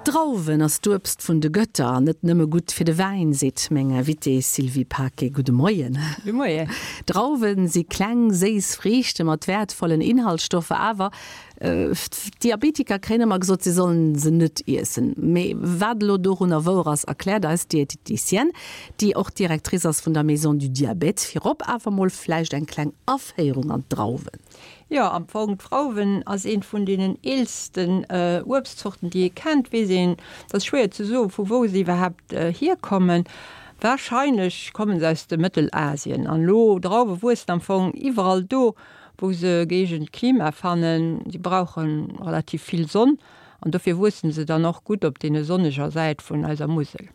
D'Drauwen ass d'Uebst vun de Götter an net nëmme gutt fir de Wäin, seet meng Invitée Sylvie Paquet. Gudde Moien. Gudde Moien. Drauwen si kleng, séiss Friichte mat wäertvollen Inhaltsstoffer, awer d'Diabetiker kréien ëmmer gesot, si sollen se net iessen. Mee wat elo dorunner wouer ass, erkläert eis d'Diététicienne, déi och Directrice ass vun der Maison du Diabète. Virop awer mol vläicht eng kleng Aféierung an d'Drauwen. Jo, am Fong, d'Drauwen ass eent vun deenen eelsten Uebstzorten, déi ee kennt. Weess een, et ass schwéier ze soen, vu wou se iwwerhaapt hierkommen. Warscheinlech kommen se aus dem Mëttelasien. An elo, Drauwe wuessen am Fong iwwerall do, wou se gëeegent Klima fannen. Si brauche relativ vill Sonn an dofir wuessen se dann och gutt op deene sonneger Säit vun eiser Musel.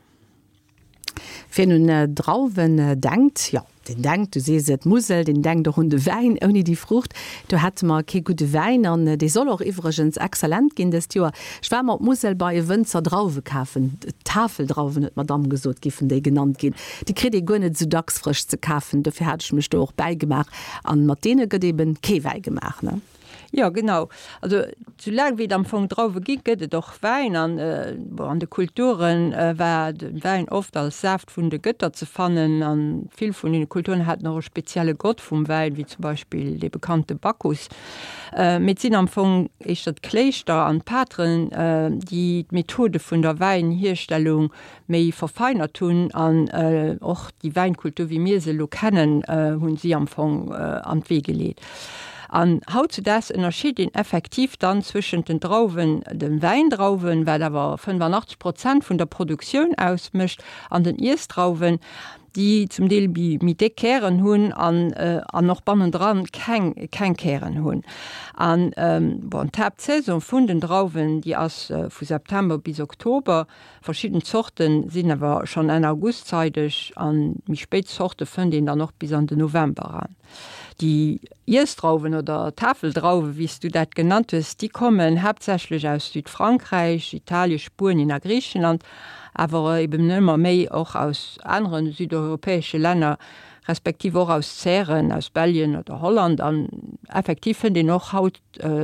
Wien un Drauwen denkt, jo, deen denkt, du sees et, d'Musel, deen denkt och un de Wäin. Ouni déi Fruucht, do hätte mer kee gudde Wäin. An dee soll och iwwregens exzellent ginn dëst Joer. Ech war mer op d'Musel bei e Wënzer Drauwe kafen. Tafeldrauwen, huet d'Madamm gesot, giffen déi genannt ginn. Déi kritt ee guer net esou dacks frësch ze kafen. Dofir hat ech mech do och bäigemaach. An mat deene gëtt eben kee Wäi gemaach, ne? Jo, genau. Also soulaang wéi et am Fong Drauwe gi gëtt et och Wäin. An bon, an de Kulture war de Wäin oft als Saaft vun de Gëtter ze fannen. An vill vun deene Kulturen haten och e spezielle Gott vum Wäin, wéi zum Beispill dee bekannte Bacchus. Mee et sinn am Fong éischter d'Kléischter an d'Pateren, déi d'Methode vun der Wäinhierstellung méi verfeinert hunn an och déi Wäinkultur, wéi mir se elo kennen, hunn si am Fong an d'Wee geleet. An hautzudaags ënnerscheet een effektiv dann zwëschent den Drauwen, de Wäindrauwen, wat awer 85 Prozent vun der Produktioun ausmécht, an den Iessdrauwen, déi zum Deel méi méi déck Kären hunn an an och bannendran keng keng Kären hunn. An bon, d'Haaptsaison vun den Drauwen, déi ass vu September bis Oktober. Verschidden Zorten sinn awer schonn Enn August zeideg an méi spéit Zorte fënnt een dann och bis an den November eran. Déi Iessdrauwen oder Tafeldrauwen, wéi s du dat genannt hues, déi kommen haaptsächlech aus Südfrankräich, Italien, Spuenien a Griichenland, awer eben ëmmer méi och aus anere südeuropäesche Länner, respektiv och aus Zären, aus Belgien oder Holland. An effektiv fënnt een och haut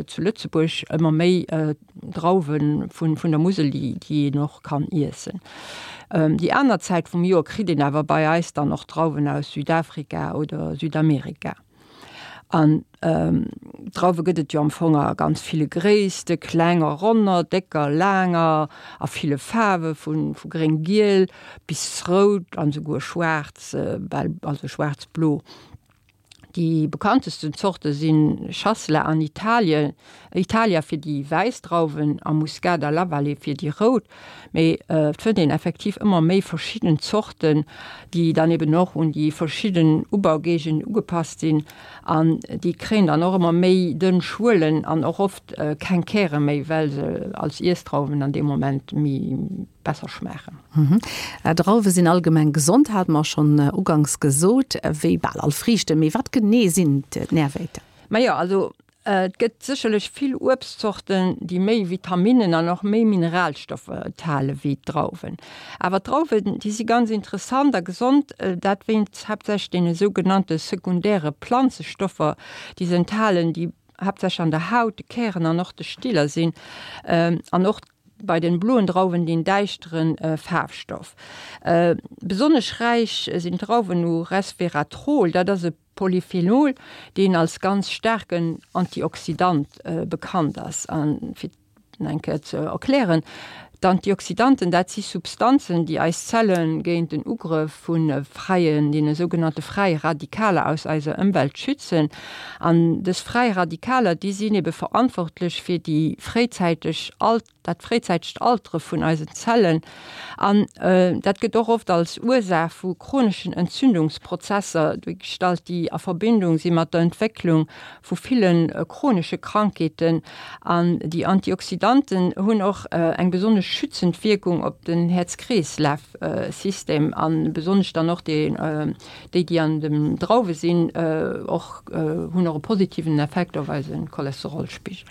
zu Lëtzebuerg ëmmer méi Drauwe vun der Musel, déi een och kann iessen. Déi aner Zäit vum Joer kritt een awer bei eis dann och Drauwen aus Südafrika oder Südamerika. An Drauwe gëtt et jo am Fong a ganz ville Gréisste, klenger, ronner, décker, laanger, a ville Faarwe vu gréng-giel bis rout an esouguer schwaarz, bal also schwaarz-blo. Déi bekanntesten Zorte si Chasselas an Italien, Italia fir déi wäiss Drauwen a Muscat a La Vallée fir déi rout. Mee et fënnt een effektiv ëmmer méi verschidden Zorten, déi dann eben och un déi verschidden Ubaugéigenden ugepasst sinn. An déi kréien dann och ëmmer méi dënn Schuelen an och oft keng Käre méi, well se als Iessdrauwen an deem Moment méi besser schmaachen. Drauwe sinn allgemeng gesond, hate mer schonn uganks gesot, wéi bal all Friichten. Mee wat genee sinn d'Närwäerter? Majo, also et gëtt sécherlech vill Uebstzorten, déi méi Vitaminnen an och méi Mineralstoffer enthale wéi d'Drauwen. Awer d'Drauwen, déi si ganz interessant a gesond, dat wéinst haaptsächlech deene sougenannte sekundäre Planzestoffer, déi se enthalen, déi haaptsächlech an der Haut, de Kären an och de Stiller sinn an och bei den bloen Drauwen deen däischteren Faarfstoff. Besonnesch räich sinn d'Drauwen u Resveratrol, dat ass e Polyphenol, deen als ganz staarken Antioxidant bekannt ass. An fir et eng Kéier ze erklären, D'Antioxidanten, dat si Substanzen, déi eis Zelle géint den Ugrëff vu fräien, deene sougenannte fräie Radikaler aus eiser Ëmwelt schützen. An dës fräi Radikaler, déi sinn ebe verantwortlech fir déi fréizäiteg Alt, dat fréizäitegt Altere vun eisen Zellen. An dat gëtt och oft als Ursaach vu chroneschen Entzündungsprozesser duergestallt, déi a Verbindung si mat der Entwécklung vu ville chronesche Krankheeten. An déi Antioxidanten hunn och eng besonnesch schützend Wierkung op den Häerz-Kreeslaf-System a besonnesch dann och déi, déi an den Drauwe sinn, och hunn och e positiven Effekt op eise Cholesterolspigel.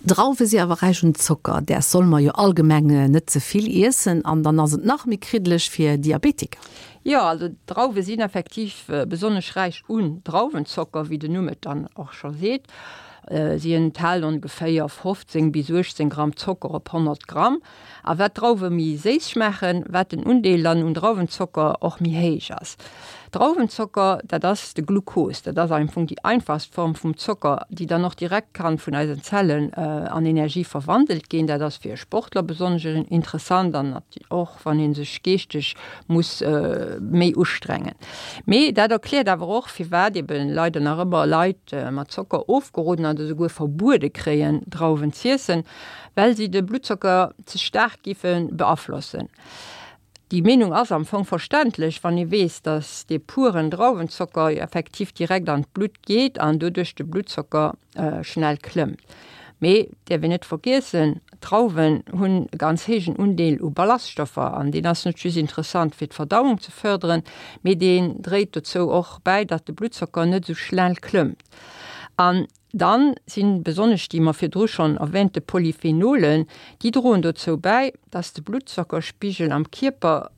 Drauwe si awer räich un Zocker, däers solle mer jo allgemeng net ze vill iessen an dann ass et nach méi kriddeleg fir Diabetiker. Jo, also Drauwe sinn effektiv besonnesch räich un Drauwenzocker, wéi den Numm et dann och scho seet. Si enthalen ongeféier 15 bis 18 Gramm Zocker op 100 Gramm. A wat d'Drauwe méi séiss schmaachen, wat den Undeel dann un Drauwenzocker och méi héich ass. Drauwenzocker, dat ass de Glukos, dat ass am Fong déi einfachst Form vum Zocker, déi dann och direkt kann vun eisen Zellen an Energie verwandelt ginn. Dat ass fir e Sportler besonnesch interessant an och wann ee sech geeschteg muss méi ustrengen. Mee dat erkläert awer och, firwat eben leider nach ëmmer Leit mat Zocker ofgeroden oder esouguer verbuede kréien, Drauwen z'iessen, well si de Bluttzocker ze staark géife beaflossen. Déi Meenung ass am Fong verständlech, wann ee weess, datt dee puren Drauwenzocker jo effektiv direkt an d'Blutt geet an doduerch de Bluttzocker schnell klëmmt. Mee et däerf een net vergiessen, D'Drauwen hunn e ganz héijen Undeel u Ballaststoffer an deen ass net just interessant fir d'Verdauung ze fërderen, mee deen dréit dozou och bäi, datt de Bluttzocker net esou schnell klëmmt. An Dann sinn besonnesch déi mer virdru schonn erwähnte Polyphenolen, déi droen dozou bäi, dass de Bluttzockerspigel am Kierper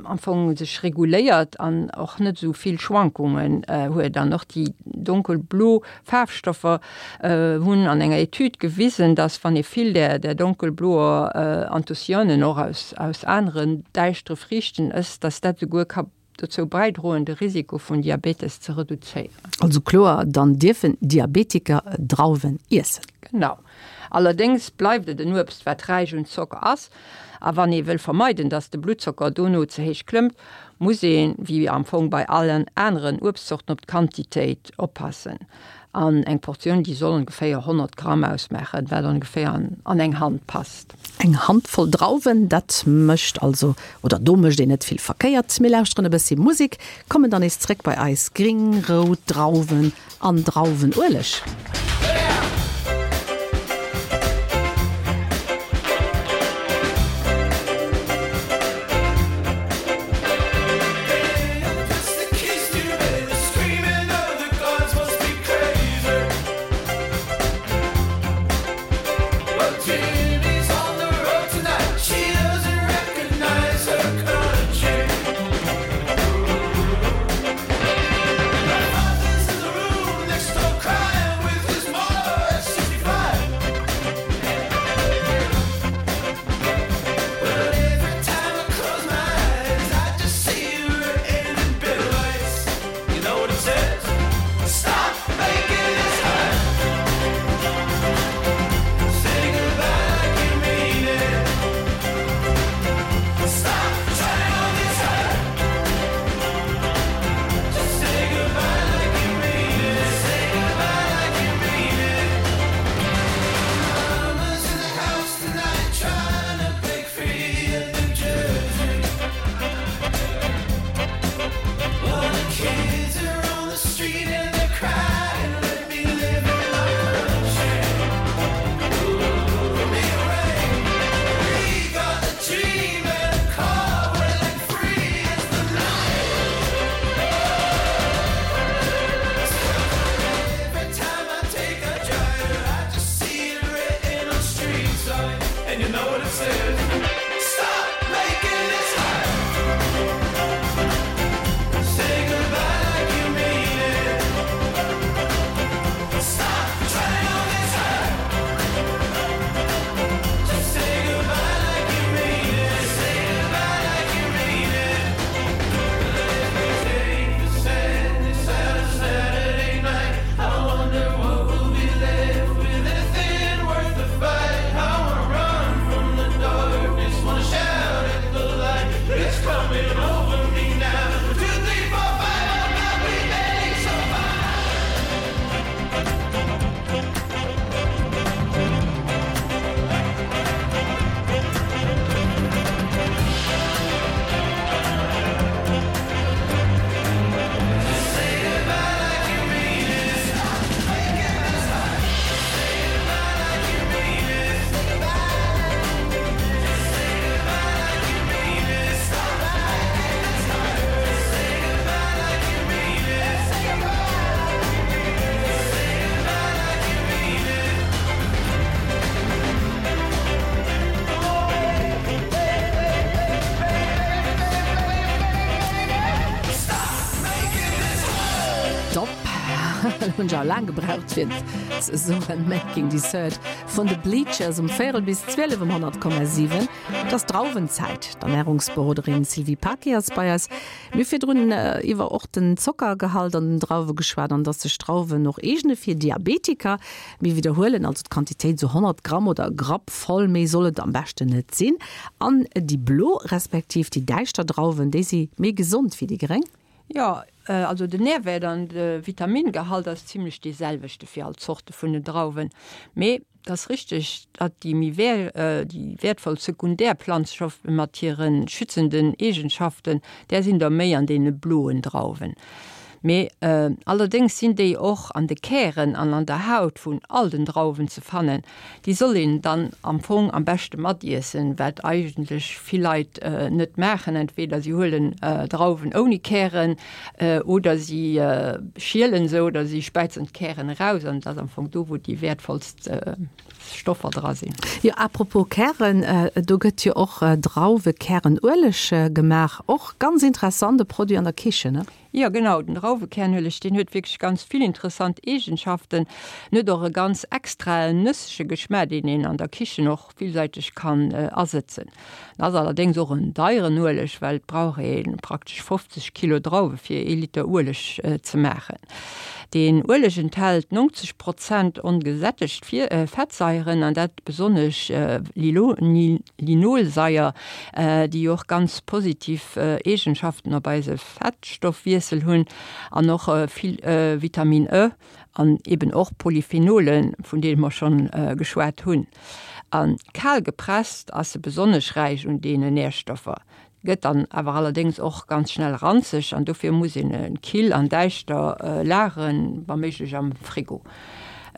am Fong sech reguléiert an och net esou vill Schwankungen huet. An och déi donkelblo Faarfstoffer hunn an enger Etüd gewisen, dass wann ee vill där där donkelbloer Anthocyanen och aus aus aneren däischtere Friichten ësst, dass dat esouguer ka dozou bäidroen, de Risiko vun Diabetes ze reduzéieren. Also kloer, dann dierfen Diabetiker Drauwen iessen. Genau. Allerdéngs bleift et en Uebst, wat räich un Zocker ass. A wann ee wëll vermeiden, dass de Bluttzocker dono ze héich klëmmt, muss een, wéi am Fong bei allen aneren Uebstzorten, op d'Quantitéit oppassen. An eng Portioun, déi soll ongeféier 100 Gramm ausmaachen, wat ongeféier an eng Hand passt. Eng Handvoll Drauwen, dat mécht also, oder do mécht een net vill verkéiert. Mir lauschteren e bëssi Musek, kommen dann nees zréck bei eis gring, rout Drauwen an Drauwenueleg. Hunn ech awer laang gebraucht fir et ze soen, Making Dessert vun de Bleachers um véierel bis 12 um 100,7. Et ass Drauwenzäit. D'Ernärungsberoderin Sylvie Paquet ass bei eis. Mir hu virdrun iwwer och den Zockergehalt an den Drauwe geschwat an dass sech Drauwen och eegne fir Diabetiker. Mir widderhuelen also d'Quantitéit, esou 100 Gramm oder e Grapp voll, méi soll et am beschten net sinn. An déi blo respektiv déi däischter Drauwen, déi si méi gesond wéi déi gréng? Jo, also den Närwäert an de Vitamingehalt ass zimlech dee selwechte fir all Zorte vun den Drauwen. Mee et ass richteg, datt déi méi déi wäertvoll sekundär Planzstoffe mat hire schützenden Eegenschaften, där sinn der méi an deene bloen Drauwen. Mee allerdéngs sinn déi och an de Kären an an der Haut vun all den Drauwen ze fannen. Déi soll een dann am Fong am beschte matiessen, wat eigentlech vill Leit net maachen. Entweder si huelen Drauwen ouni Kären oder si schielen se oder si späizen d'Kären eraus an et ass am Fong do, wou déi wäertvollst Stoffer dra sinn. Jo, à propos Kären, do gëtt jo och Drauwekärenueleg gemaach. Och ganz interessant, e Produit an der Kichen, ne? Jo genau, den Drauwekernueleg deen huet wierklech ganz vill interessant Eegenschaften. En huet och e ganz extraen nëssege Geschmaach deen een an der Kichen och villsäiteg kann asëtzen. En ass allerdéngs och en deieren Ueleg, well et brauch ee praktesch 50 Kilo Drauwe fir ee Liter Ueleg ze maachen. Deen Ueleg enthält 90 Prozent ongesättegt Fettsaieren an dat besonnesch Linolsaier, déi och ganz positiv Eegenschaften op eise Fettstoffwiessel hunn an och vill Vitamin E an eben och Polyphenolen, vun deene mer schonn geschwat hunn. A kal gepresst ass se besonnesch räich un deenen Närstoffer, gëtt dann awer allerdéngs och ganz schnell ranzeg an dofir muss een e kill an däischter lageren, wa méiglech am Frigo.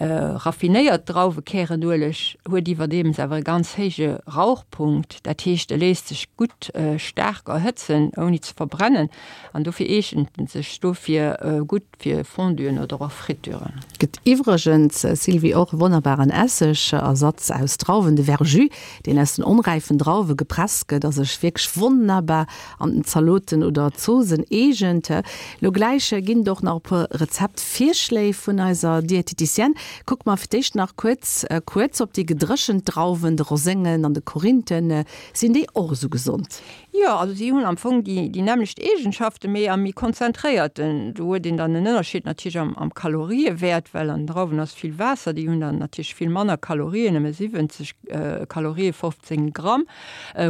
Raffinéiert Drauwekärenueleg huet iwwerdeems awer e ganz héije Rauchpunkt, dat heescht e léisst sech gutt staark erhëtzen ouni ze verbrennen an dofir eegent en sech dofir gutt fir Fonduen oder och Fritüren. Gëtt iwwregens, Sylvie, och e wonnerbaren Essegersatz aus Drauwen, de Verjus, deen aus den onräifen Drauwe gepresst gëtt a sech wierklech wonnerbar an den Zaloten oder Zoosen eegent. Lo gläich ginn et och nach e puer Rezeptvirschléi vun eiser Diététicienne. Kucke mer fir d'éischt nach kuerz kuerz op déi gedréchent Drauwen, de Roséngen an de Korinthen. Sinn déi och esou gesond? Jo, also si hunn am Fong déi déi nämmlecht Eegenschaften, mee am méi konzentréierten. Do huet een dann en Ënnerscheed natierlech am am Kaloriewäert, well an den Drauwen ass vill Waasser, déi hunn dann natierlech vill manner Kalorien, nëmme 70 Kalorië 15 Gramm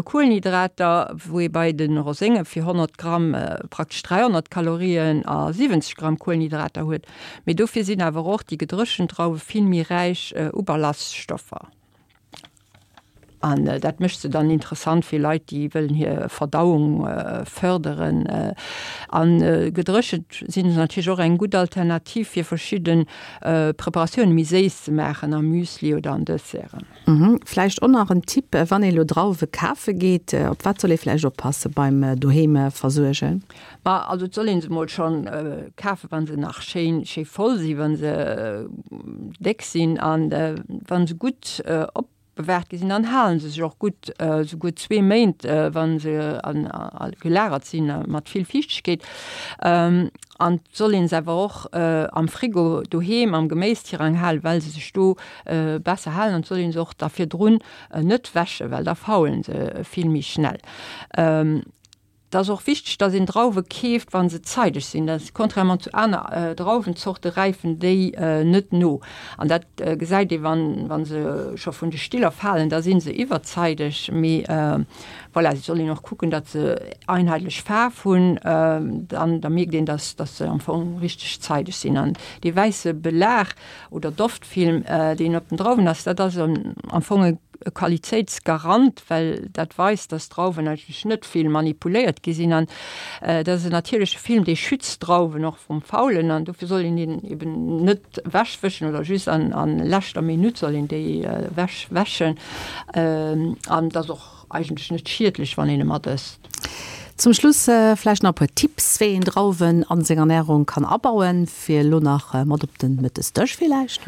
Kuelenhydrater, wou ee bei de Rosénge fir 100 Gramm praktesch 300 Kalorien a 70 Gramm Kuelenhydrater huet. Mee dofir sinn awer och déi gedréchent Drauwe vill méi räich u Ballaststoffer. An dat mécht se dann interessant fir Leit, déi wëllen hir Verdauung fërderen. A gedréchent sinn se natierlech och eng gutt Alternativ fir verschidde Preparatioune méi séiss ze maachen, am Müsli oder an Desserten. Vläicht och nach en Tipp, wann ee lo Drauwe kafe geet, op wat soll ee vläicht oppasse beim doheem versuergen? Ma also et soll een se mol schonn kafen, wa se nach schéin schéi voll sinn, wa se déck sinn an wa se gutt opbewaart gi sinn, dann halen se sech och gutt, souguer zwee Méint, wa se gelagert sinn mat vill Fiichtegkeet. An et soll een se awer och am Frigo doheem am Geméistirang halen, well se sech do besser halen. An et soll een se och da virdrun net wäschen, well da faulen se vill méi schnell. Et ass och wichteg, dass een Drauwe keeft, wa se zeideg sinn. Dat, contrairement zu aner Drauwenzorte räifen déi net no. An dat gesäit ee wann, wa se scho vun de Stiller falen, da si se iwwerzeideg. Mee voilà, et soll een och kucken, datt se einheetlech Faarf hunn. Dann da mierkt een, dass, dass se am Fong richteg zeideg sinn. An dee wäisse Belag oder Doftfilm, deen op den Drauwen ass, dat ass am Fong e Qualitéitsgarant, well dat weist, dass d'Drauwen eigentlech net vill manipuléiert gi sinn. An dat ass en natierleche Film, dee schützt d'Drauwen och vrum Faulen. An dofir soll een deen eben net ewechwëschen oder just an a leschter Minutt soll een déi ewechwäschen. An et ass och eigentlech net schiedlech, wann een e mat ësst. Zum Schluss vläicht nach e puer Tipps, wéi een Drauwen an seng Ernärung kann abauen, fir elo nach mat op den Mëttesdësch villäicht?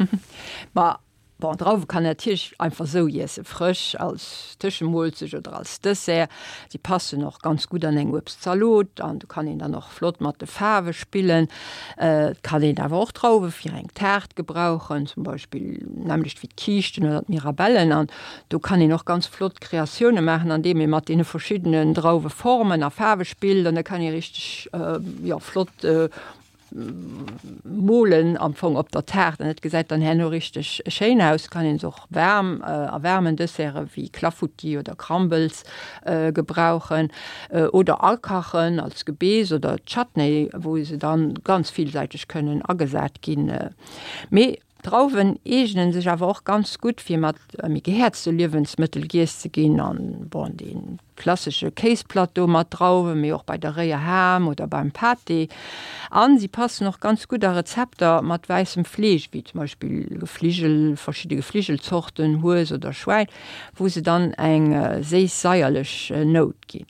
Ma. Bon, Drauwe kann een natierlech einfach sou iessen, frësch als Tëschemoolzecht oder als Dessert. Si passen och ganz gutt an eng Uebstzalot an do kann een dann och flott mat de Faarwe spillen. Et kann een awer och Drauwe fir eng Taart gebrauchen, zum Beispill nämmlecht wéi d'Kiischten oder d'Mirabellen. An do kann een och ganz flott Kreatioune maachen, andeem ee mat deene verschiddenen Drauweformen a Faarwe spillt an da kann ee richteg, jo, flott Molen am Fong op der Taart an et gesäit dann herno richteg schéin aus. Kann een se och waarm a waarmen Desserte wéi Clafoutis oder Crumbles gebrauchen oder akachen als Gebeess oder Chutney, wou se dann ganz villsäiteg kënnen agesat ginn. Mee D'Drauwen eegnen sech awer och ganz gutt fir mat méi gehäerzte Liewensmëttel giess ze ginn an bon dee klassesche Kéisplateau mat Drauwen, mee och bei der réier Ham oder beim Pâté. An si passen och ganz gutt a Rezepter mat wäissem Fleesch, wéi zum Beispill Gefligel, verschidde Gefligelzorten, Hues oder Schwäin, wou se dann eng séiss-saierlech Nout ginn.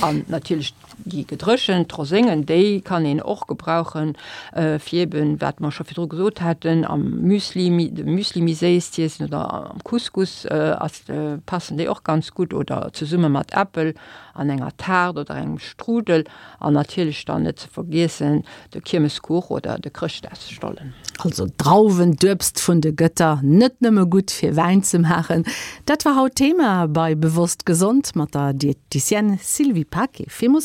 An natierlech déi gedréchent Roséngen, déi kann een och gebrauchen, fir eben, wat mer scho virdru gesot haten, am Müsli, de Müsli méi séiss z'iessen oder am Couscous ass, passen déi och ganz gutt oder zesumme mat Äppel an enger Taart oder engem Strudel. An natierlech dann net ze vergiessen de Kiermeskuch oder de Chrëschtdagsstollen. Also Drauwen, d'Uebst vun de Gëtter, net nëmme gutt fir Wäin ze maachen. Dat war haut Thema bei Bewosst Gesond mat der Diététicienne Sylvie Paquet. Villmools.